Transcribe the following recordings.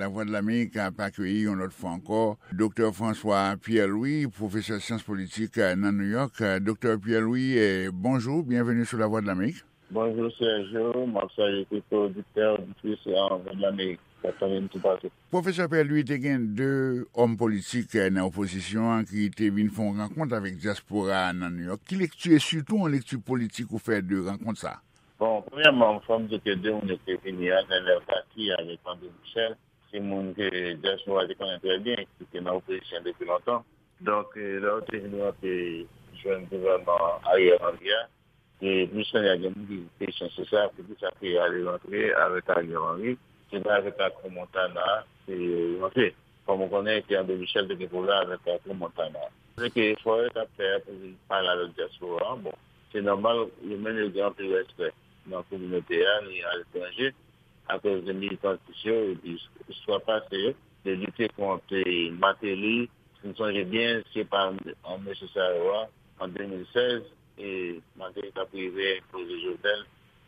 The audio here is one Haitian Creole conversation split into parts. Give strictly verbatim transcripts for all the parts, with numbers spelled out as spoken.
Lavwadlamerik ap akeyi yon lòt fwa ankò Doktè François Pierre-Louis, pwofesè syans politik nan New York. Doktè Pierre-Louis, bonjou, byenveni sou Lavwadlamerik. Bonjou Sergio, m ap salye tout oditè, oditris Lavwadlamerik k ap tande m toupatou. Pwofesè Pierre-Louis, te gen de òm politik nan opozisyon an ki te vin fè yon rankont avèk dyaspora a nan New York. Ki lekti, e sitou yon lekti politik ou fè de rankont sa a? Bon, premyèman, fò m di ke de moun yo ki te vini a, Nenel Cassy avèk André Michel, se moun ke dyaspora te konnen trè byen, ki te nan opozisyon depi lontan. Donk, lè yo te vin rantre jwenn gouvènman Ariel Henry a, e plis kounye a gen moun ki kesyon se sa, poukisa ke ale rantre avèk Ariel Henry, se pa avèk Arthur Montana ke yo rantre. Kòm ou konnen ke André Michel te gen pwoblèm avèk Arthur Montana. Se ke efò yo t ap fè pou vin pale avèk dyaspora an, bon, se nòmal, yo menm yo gen anpil respè nan kominote a, ni aletranje, akoz de militantis yo, epi istwa pase yo, de lite kont Martelly, si n sonje byen, se pa an mesye sa yo a, an de mil sèz, e Martelly t ap rive enpoze Jovenel,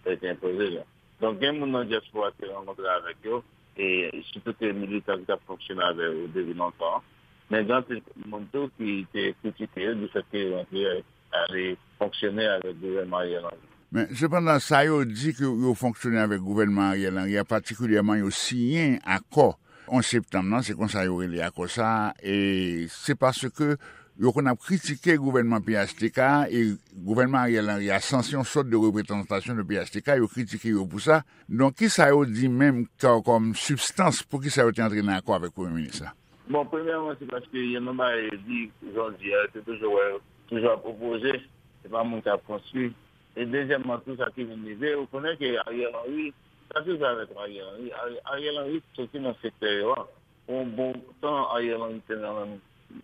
lè te enpoze l. Donk, gen moun nan dyaspora ki te rankontre avèk yo, e sitou ke militan ki t ap fonksyone avè yo depi lontan. Men gen anpil moun tou ki te kritike yo difèt ke yo rantre ale fonksyone avèk gouvènman Ariel Henry. Men, sepandan, sa yo di ke yo fonksyone avèk gouvènman Ariel Henry a, patikilyèman yo siyen akò onz septanm nan, se konsa yo rele akò sa a, e se paske yo konn ap kritike gouvènman P H T K a, e gouvènman Ariel Henry a sanse yon sòt de reprezantasyon de P H T K, yo kritike yo pou sa. Donk, kisa yo di menm kò-, kòm sibstans, poukisa yo te antre nan akò avèk premye minis la? Bon, premyèman, se paske gen yon bagay yo di, jan w di a, yo te toujou wè, toujou ap opoze, se pa moun k ap konstwi. E dezyèmman tou, sa ki vin rive, ou konnen ke Ariel Henry, sa ki rive avèk Ariel Henry, Ari-, Ariel Henry soti nan sektè yo a. Pou yon bon tan, Ariel Henry te nan,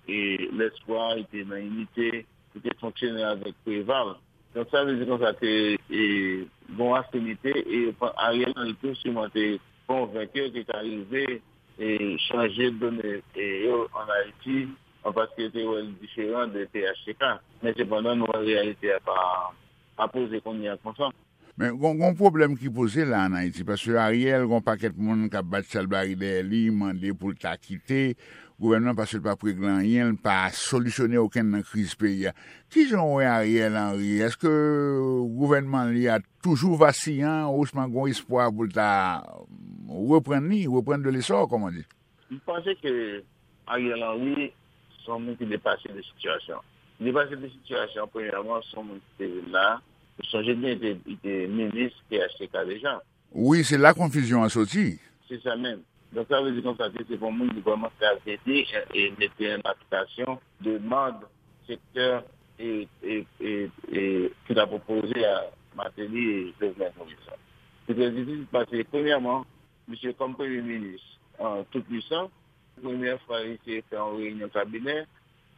e, lespwa, li te nan inite, li te fonksyone avèk Preval. Donk, sa vle di konsa ke, e, gen yon afinite, e Ariel Henry tou siman te konvenk yo ke ta rive, e, chanje done, e, yo ann Ayiti, an paske yo te wè l diferan de P H T K. Men sepandan, nou wè reyalite a pa, pa poze kounye a konsa. Men gon, gon pwoblèm ki poze la ann Ayiti, paske Ariel, gon pakèt moun k ap bat chalbari dèyè li, mande pou l ta kite gouvènman paske l pa p regle anyen, l pa solisyone okenn nan kriz peyi a. Kijan w wè Ariel Henry? Èske gouvènman li a toujou vasiyan, ousman gon espwa pou l ta reprann li, reprendre de l'essor, comme on dit? M panse ke Ariel Henry se yon moun ki depase de sitiyasyon. Li depase de sitiyasyon, premyèman, se yon moun ki te vin la. Ou sonje byen, li te, li te minis P H T K deja. Wi, se la konfizyon an soti. Se sa menm. Donk, sa vle di konsa ke se pa yon moun ki vrèman ka ede e, e mete an aplikasyon demann sektè e, e, e, e ki ta pwopoze a Martelly e Jovenel Moïse la. Se trè difisil paske, premyèman, misye kòm premye minis, an, tou pwisan, premyè fwa li te fè yon reyinyon kabinè,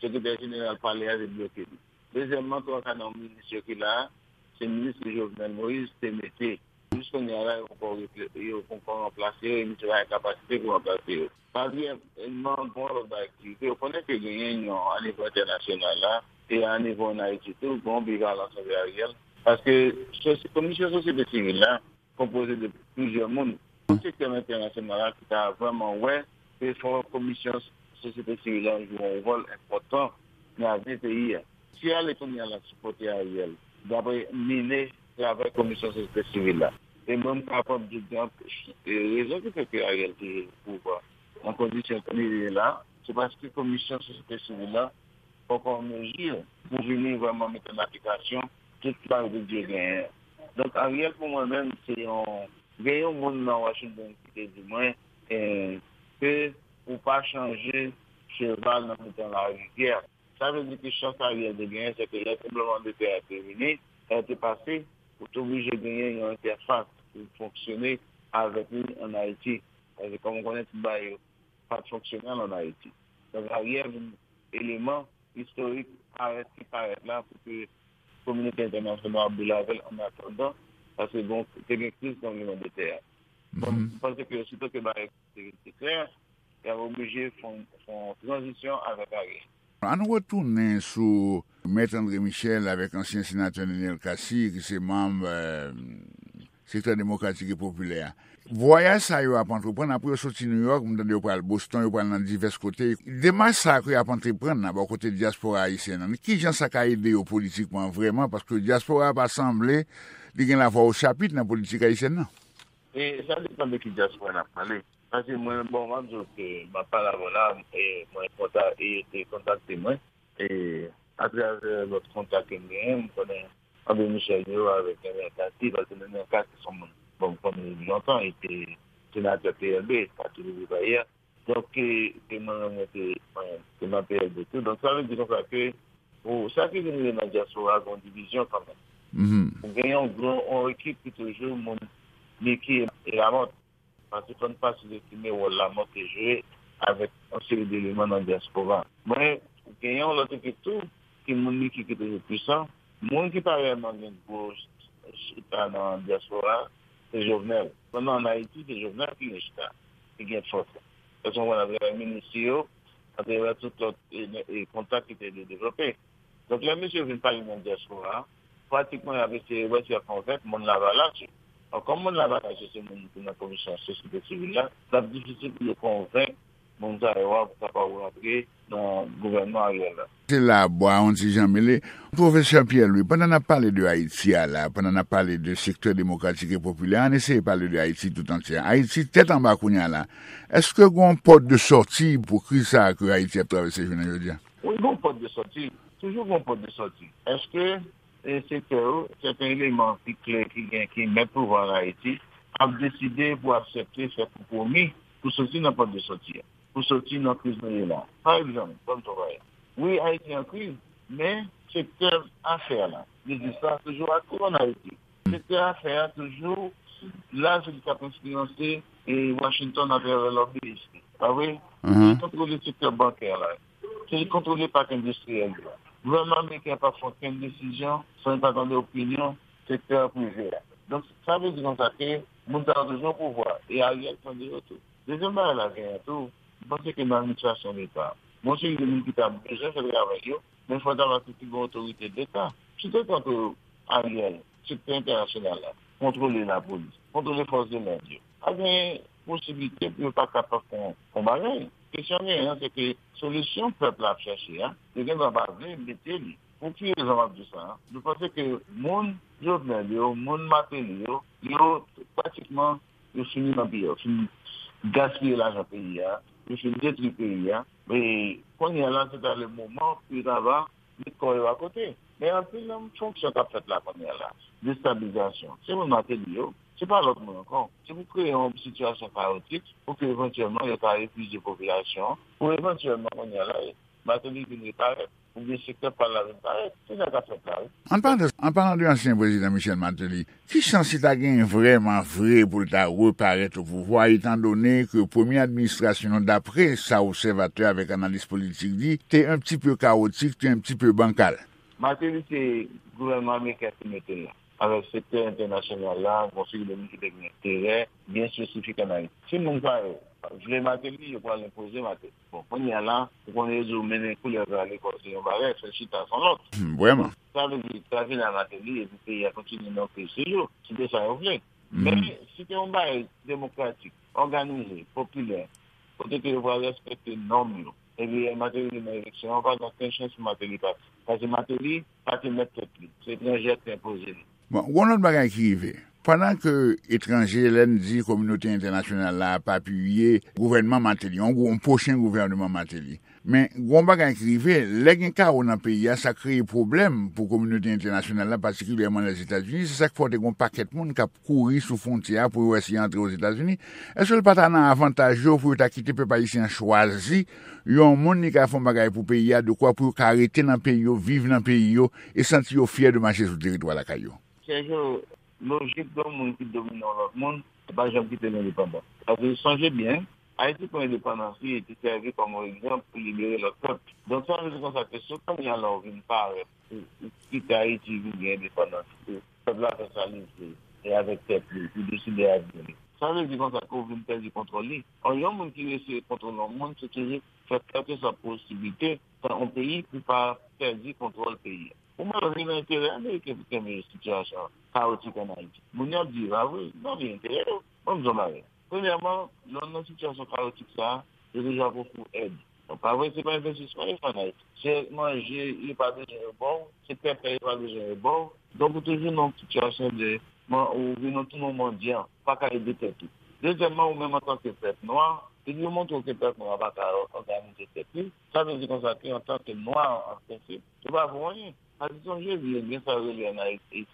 sekretè jeneral palè a te bloke li. Dezyèmman, twa ka nan minis yo ki la a, se minis ke Jovenel Moïse te mete. Jis kounye a la, yo poko refle-, yo poko ranplase yo, e misye pa gen kapasite pou ranplase yo. Patriyèlman, gen yon lòt bagay ki rive. Ou konnen ke genyen yon, a nivo entènasyonal la, e a nivo ann Ayiti tou, gen yon bivalans anvè Ariel. Paske sosi-, komisyon sosyete sivil la, konpoze de plizyè moun nan sektè entènasyonal la ki ta vrèman wè ke fò komisyon sosyete sivil la jwe yon wòl enpòtan nan avni peyi a. Si ale kounye a l ap sipòte Ariel, dapre mine travay komisyon sosyete sivil la. E mwen m kapab di gen rezon ki fè ke Ariel toujou nan pouvwa nan kondisyon ke li ye la, se paske komisyon sosyete sivil la poko an mezi pou vini vrèman mete an aplikasyon tout sa yo te di yo genyen. Donk, Ariel, pou mwen menm, se yon, gen yon moun nan Washington ki te di mwen, eh, ke ou pa chanje cheval nan mitan larivyè. Sa vle di ke chans Ariel te genyen, se ke lè tranblemanntè a te vini, lè te pase, ou te oblije genyen yon entèfas pou fonksyone avèk li ann Ayiti. Paske, kòm ou konnen, tout bagay yo pa t fonksyonèl ann Ayiti. Donk, Ariel vin eleman istorik parèt ki parèt la pou ke kominote entènasyonal ap boule avè l annatandan, paske bon, te gen kriz tranblemanntè a. Bon, m panse ke osito ke bagay te, te klè, y ap oblije fè yon, fè yon tranzisyon avèk Ariel. Ann retounen sou Mèt André Michel avèk ansyen senatè Nenel Cassy, ki se manm, eh, Sektè Demokratik e Popilè a. Vwayaj sa yo ap antreprann, apre yo soti Nouyòk, m tande yo pral Boston, yo pral nan divès kote. Demach sa ke y ap antreprann nan bò kote dyaspora ayisyen an, kijan sa ka ede yo politikman vrèman? Paske dyaspora a pa sanble li gen lavwa o chapit nan politik ayisyèn nan. E sa depann de ki dyaspora n ap pale. Paske mwen, bon, m ap di w ke m ap pale avè w la, e mwen kontak, e te kontakte mwen. E atravè lòt kontak ke m genyen, m konnen André Michel yo avèk Nenel Cassy, paske Nenel Cassy se yon moun, bon, m konnen li depi lontan, li te senatè P L B, Pati Legliz Ayè. Donk, e, e mwen menm, mwen te, mwen, te nan P L B tou. Donk, sa vle di konsa ke, pou sa ki vin rive nan dyaspora, gen yon divizyon kanmenm. Ou gen yon gran, yon ekip ki toujou moun Niki e Lamòt. Paske fò n pa sizestime wòl Lamòt te jwe avèk yon seri deleman nan dyaspora. Mwen, gen yon lòt ekip tou, ki moun Niki ki toujou pwisan. Moun ki pa reyèlman gen gwo chita nan dyaspora, se Jovenel. Pandan ann Ayiti, se Jovenel ki gen chita, ki gen fòs la. Paske mwen, atravè minis yo, atravè tout lòt, e, e, kontak ki te devlope. Donk, lè mesye yo vin pale nan dyaspora a, pratikman, y ap eseye wè si y ap konvenk moun Lavalas yo. Bon, kòm moun Lavalas yo se moun ki nan komisyon sosyete sivil la, l ap difisil pou yo konvenk moun sa yo a pou kapab rantre nan gouvènman Ariel la. Se la bwa yon ti jan mele. Pwofesè Pierre Louis, pandan n ap pale de Ayiti a la, pandan n ap pale de sektè demokratik e popilè, ann eseye pale de Ayiti tout antye. Ayiti tèt anba kounye a la. Èske gen yon pòt de sòti pou kriz sa a ke Ayiti ap travèse jounen jodi a? Wi, gen yon pòt de sòti. Toujou gen yon pòt de sòti. Èske, e, sektè yo, sèten eleman ki kle, ki gen, ki mèt pouvwa an Ayiti, ap deside pou aksepte fè konpwomi pou soti nan pòt de sòti a, pou soti nan kriz nou ye la? Pa egzanp, ban m travay. Wi, Ayiti an kriz, men sektè afè la, biznis la toujou aktif an Ayiti. Sektè afè a toujou la, se li k ap enfliyanse, e, Washington atravè lòbiyis li. Pa vre? Se li kontwole sektè bankè la. Se li kontwole pak endistriyèl yo. Gouvènman ameriken an p ap fè okenn desizyon san li pa tande opinyon sektè prive a. Donk, sa vle di konsa ke moun sa yo toujou nan pouvwa, e Ariel tande yo tou. Dezyèm bagay la genyen tou, m panse ke nan administrasyon leta, gen yon seri de moun ki ta bezwen fè travay yo, men fò ta pase pi gen otorite leta. Si te tankou Ariel, sektè entènasyonal la, kontwole lapolis, kontwole fòs de lòd yo, pa gen posiblite pou yo pa kapab fè yon, yon bagay. Kesyon genyen an, se ke solisyon pèp la ap chache a, yo gen dwa pa vle mete li. Pou ki rezon m ap di sa a? Nou panse ke moun Jovenel yo, moun Martelly yo, yo pratikman, yo fini nan peyi a, yo fin gaspiye lajan peyi a, yo fin detwi peyi a. E kounye a la, se ta le moman pou yo ta va met kò yo akote. Men anpil nan fonksyon k ap fèt la kounye a la, destabilizasyon, se moun Martelly yo, se pa lòt moun ankò. Se pou kreye yon sitiyasyon kayotik pou ke evantyèlman yo ta epuize popilasyon an, pou evantyèlman kounye a la, Martelly vin reparèt, oubyen sektè pa l la vin parèt. Se sa k ap fèt la, wi. An palan, an palan de ansyen prezidan Michel Martelly, ki chans li ta genyen vrèman vre pou l ta reparèt o pouvwa, etandone ke premye administrasyon l, dapre sa obsèvatè avèk analis politik di, te un petit peu chaotique, te un petit peu bancal? Martelly se gouvènman ameriken ki mete l la. Avèk sektè entènasyonal la, gen yon seri de moun ki te gen enterè byen espesifik ann Ayiti. Si moun sa yo vle Martelly, yo pral enpoze Martelly. Bon, kounye a la, ou konnen yo di w mennen koulèv la lekòl se yon bagay, fè l chita se yon lòt. Hmm, vrèman. Sa vle di, sa vin a Martelly, epi peyi a kontinye nan kriz toujou. Se de sa yo vle. Men, si te yon bagay demokratik, òganize, popilè, kote ke yo pral respekte nòm yo, epi Martelly vin nan eleksyon an, pa gen okenn chans pou Martelly pase. Paske Martelly pa te mèt tèt li. Se etranjè ki te enpoze li. Bon, gen yon lòt bagay ki rive. Pandan ke etranje, lè n di kominote entènasyonal la ap apiye gouvènman Martelly, yon gwo, yon pwochen gouvènman Martelly. Men, gen yon bagay ki rive, lè gen kawo nan peyi a, sa kreye pwoblèm pou kominote entènasyonal la, patikilyèman Lèzetazini. Se sa k fè w te gen yon pakèt moun k ap kouri sou fwontyè a pou yo wè si y antre Ozetazini. Èske l pa ta nan avantaj yo pou yo ta kite pèp ayisyen an chwazi yon moun li ka fè yon bagay pou peyi a, dekwa pou yo ka rete nan peyi yo, viv nan peyi yo, e santi yo fyè de mache sou teritwa lakay yo? Sèjo, lojik de yon moun ki domine yon lòt moun, se pa janm kite l endepandan. Paske sonje byen, Ayiti pran endepandans li e te sèvi kòm yon egzanp pou libere lòt pèp. Donk, sa vle di konsa ke si w kounye a la w vin parèt, ou, ou kite Ayiti vin gen endepandans, e pèp la fè sa li vle, e avèk tèt li, li deside avni li. Sa vle di konsa ke w vin pèdi kontwòl li. Ò, yon moun ki eseye kontwole yon moun, se toujou fè kèlkeswa posiblite, fè yon peyi pou pa pèdi kontwòl peyi a. Ou menm, li nan enterè ameriken pou kenbe sitiyasyon an kawotik ann Ayiti. Moun yo ap di, a wi, nan li enterè yo. Ban m di w yon bagay. Premyèman, lè w nan sitiyasyon kawotik sa a, yo toujou ap ofri w èd. Donk, pa vre, se pa envestisman yo fè an Ayiti. Se manje, yo pa bezwen yo ba w, se pèpè, yo pa bezwen yo ba w. Donk, ou toujou nan yon sitiyasyon de, man, ou vin nan tou yon mandyan, ou pa ka ede tèt ou. Dezyèmman, ou menm antanke pèp nwa, depi yo montre w ke pèp nwa pa ka òganize tèt li, sa vle di konsa ke antanke nwa, an prensip, yo pa vo anyen. Sa di sonje di, gen sa yo rele an Ayiti,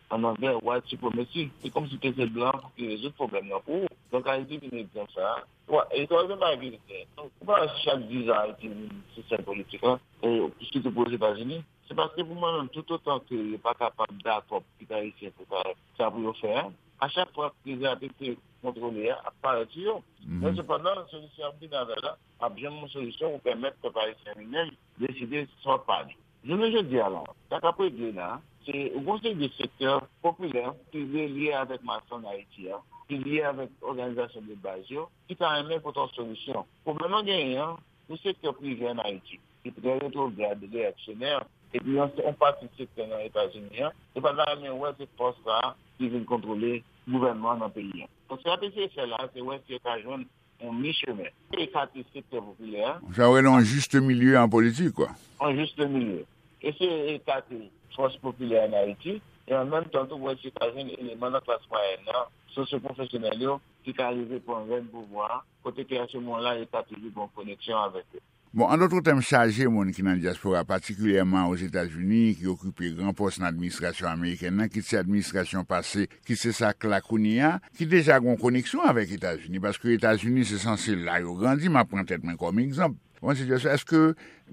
an anglè, white supremacy. Se kòmsi te se blan pou ki rezoud pwoblèm nan pou ou. Donk, Ayiti vin egzanp sa a. Wa, e twazèm bagay ki gen. Donk, ou pa wè si chak diz an Ayiti vin se sèl politik lan, e sitou pou Ozetazini. Se paske pou mwen menm, toutotan ke yo pa kapab dakò pou tout Ayisyen pou fè sa pou yo fè a, a chak fwa kriz la te, te kontwole a ap parèt sou yo. Men sepandan, solisyon y ap vin avè la, ap janm yon solisyon pou pèmèt pèp ayisyen li menm deside sa w ap pale. Jounen jodi a la, sa k ap regle la, se yon seri de sektè popilè ki relye avèk mas an Ayiti a, ki lye avèk òganizasyon de baz yo, ki ta renmen pote yon solisyon. Pwoblèm nan genyen an, yon sektè prive an Ayiti, ki trè retwograd, reyaksyonè, epi yon, yon pati sektè nan Etazini an, yo pa ta renmen wè se fòs sa a ki vin kontwole gouvènman an nan peyi an. Donk, sa yo te eseye fè la, se wè si yo ka jwenn yon mi chemen. Ekate sektè popilè a. Sa yo rele yon jis milye an politik, kwa. Yon jis milye. Eseye ekate fòs popilè an Ayiti, e an menm tan tou, wè si yo ka jwenn eleman nan klas mwayèn nan, sosyopwofesyonèl yo, ki ka rive pran rèn pouvwa a, kote ke a se moman la, yo ka toujou gen yon koneksyon avèk yo. Bon, an dòt tèm, chaje moun ki nan dyaspora, patikilyèman Ozetazini, ki okipe gran pòs nan administrasyon amerikèn nan, kit se administrasyon pase, kit se sa k la kounye a, ki deja gen yon koneksyon avèk Etazini, paske Etazini se sanse la yo grandi, m ap pran tèt mwen kòm egzanp. Bon, se jis, èske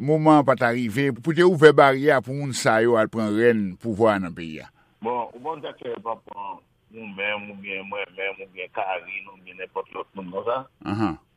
moman an pa ta rive pou te ouvè baryè a pou moun sa yo al pran rèn pouvwa a nan peyi a? Bon, ou bon, sa ke yo pa pran ou menm, oubyen mwen menm, oubyen Karine, oubyen nenpòt lòt moun konsa,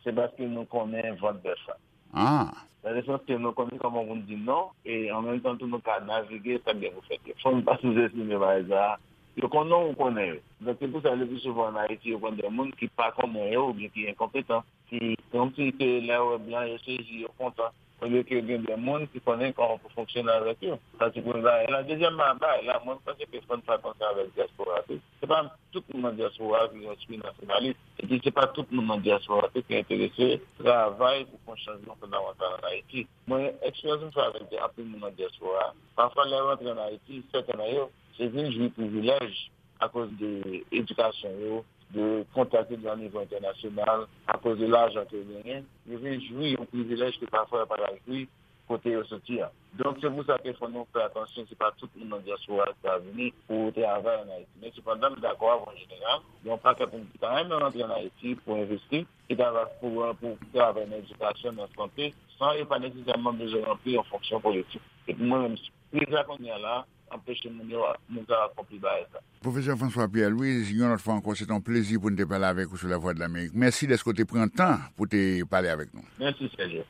se paske nou konnen vant bèf la. Ah. Nan le sans ke nou konnen kòman pou n di non, e an menm tan tou nou ka navige sa k gen pou fèt yo. Fò n pa souzestime bagay sa a. Yo konnen w, ou konnen yo. Donk, se pou sa, le pli souvan an Ayiti, yo pran de moun ki pa konnen yo oubyen ki enkonpetan, ki, kòmsi ke lè yo wè blan, yo sezi, yo kontan. Olye ke gen de moun ki konnen kòman pou fonksyone avèk yo. Sa se premye bagay la. Dezyèm bagay la, mwen panse ke fò n fè atansan avèk dyaspora tou. Se pa tout moun nan dyaspora ki gen espri nasyonalis. Epi se pa tout moun nan dyaspora tou ki enterese travay pou fè yon chanjman fondamantal an Ayiti. Mwen, eksperyans m fè avèk anpil moun nan dyaspora, pafwa lè yo rantre an Ayiti, sèten nan yo, se vin jwi privilèj akoz de edikasyon yo, de kontak yo gen o nivo entènasyonal, akoz de lajan ke yo genyen, yo vin jwi yon privilèj ke pafwa yo pa t al jwi kote yo soti a. Donk, se pou sa ke fò nou fè atansyon, se pa tout moun nan dyaspora ki ka vini pou travay an Ayiti. Men sepandan, m dakò avè w an jeneral, gen yon pakèt moun ki ta renmen rantre an Ayiti pou envesti, ki ta va pou, pou travay nan edikasyon, nan sante, san yo pa nesesèman bezwen ranpli yon fonksyon politik. Epi mwen menm, kriz la kounye a la, anpeche moun yo, moun sa yo akonpli bagay sa. Pwofesè François Pierre Louis, yon lòt fwa ankò, se te yon plezi pou n te pale avèk ou sou Lavwadlamerik. Mèsi dèske w te pran tan pou te pale avèk nou. Mèsi, Serge.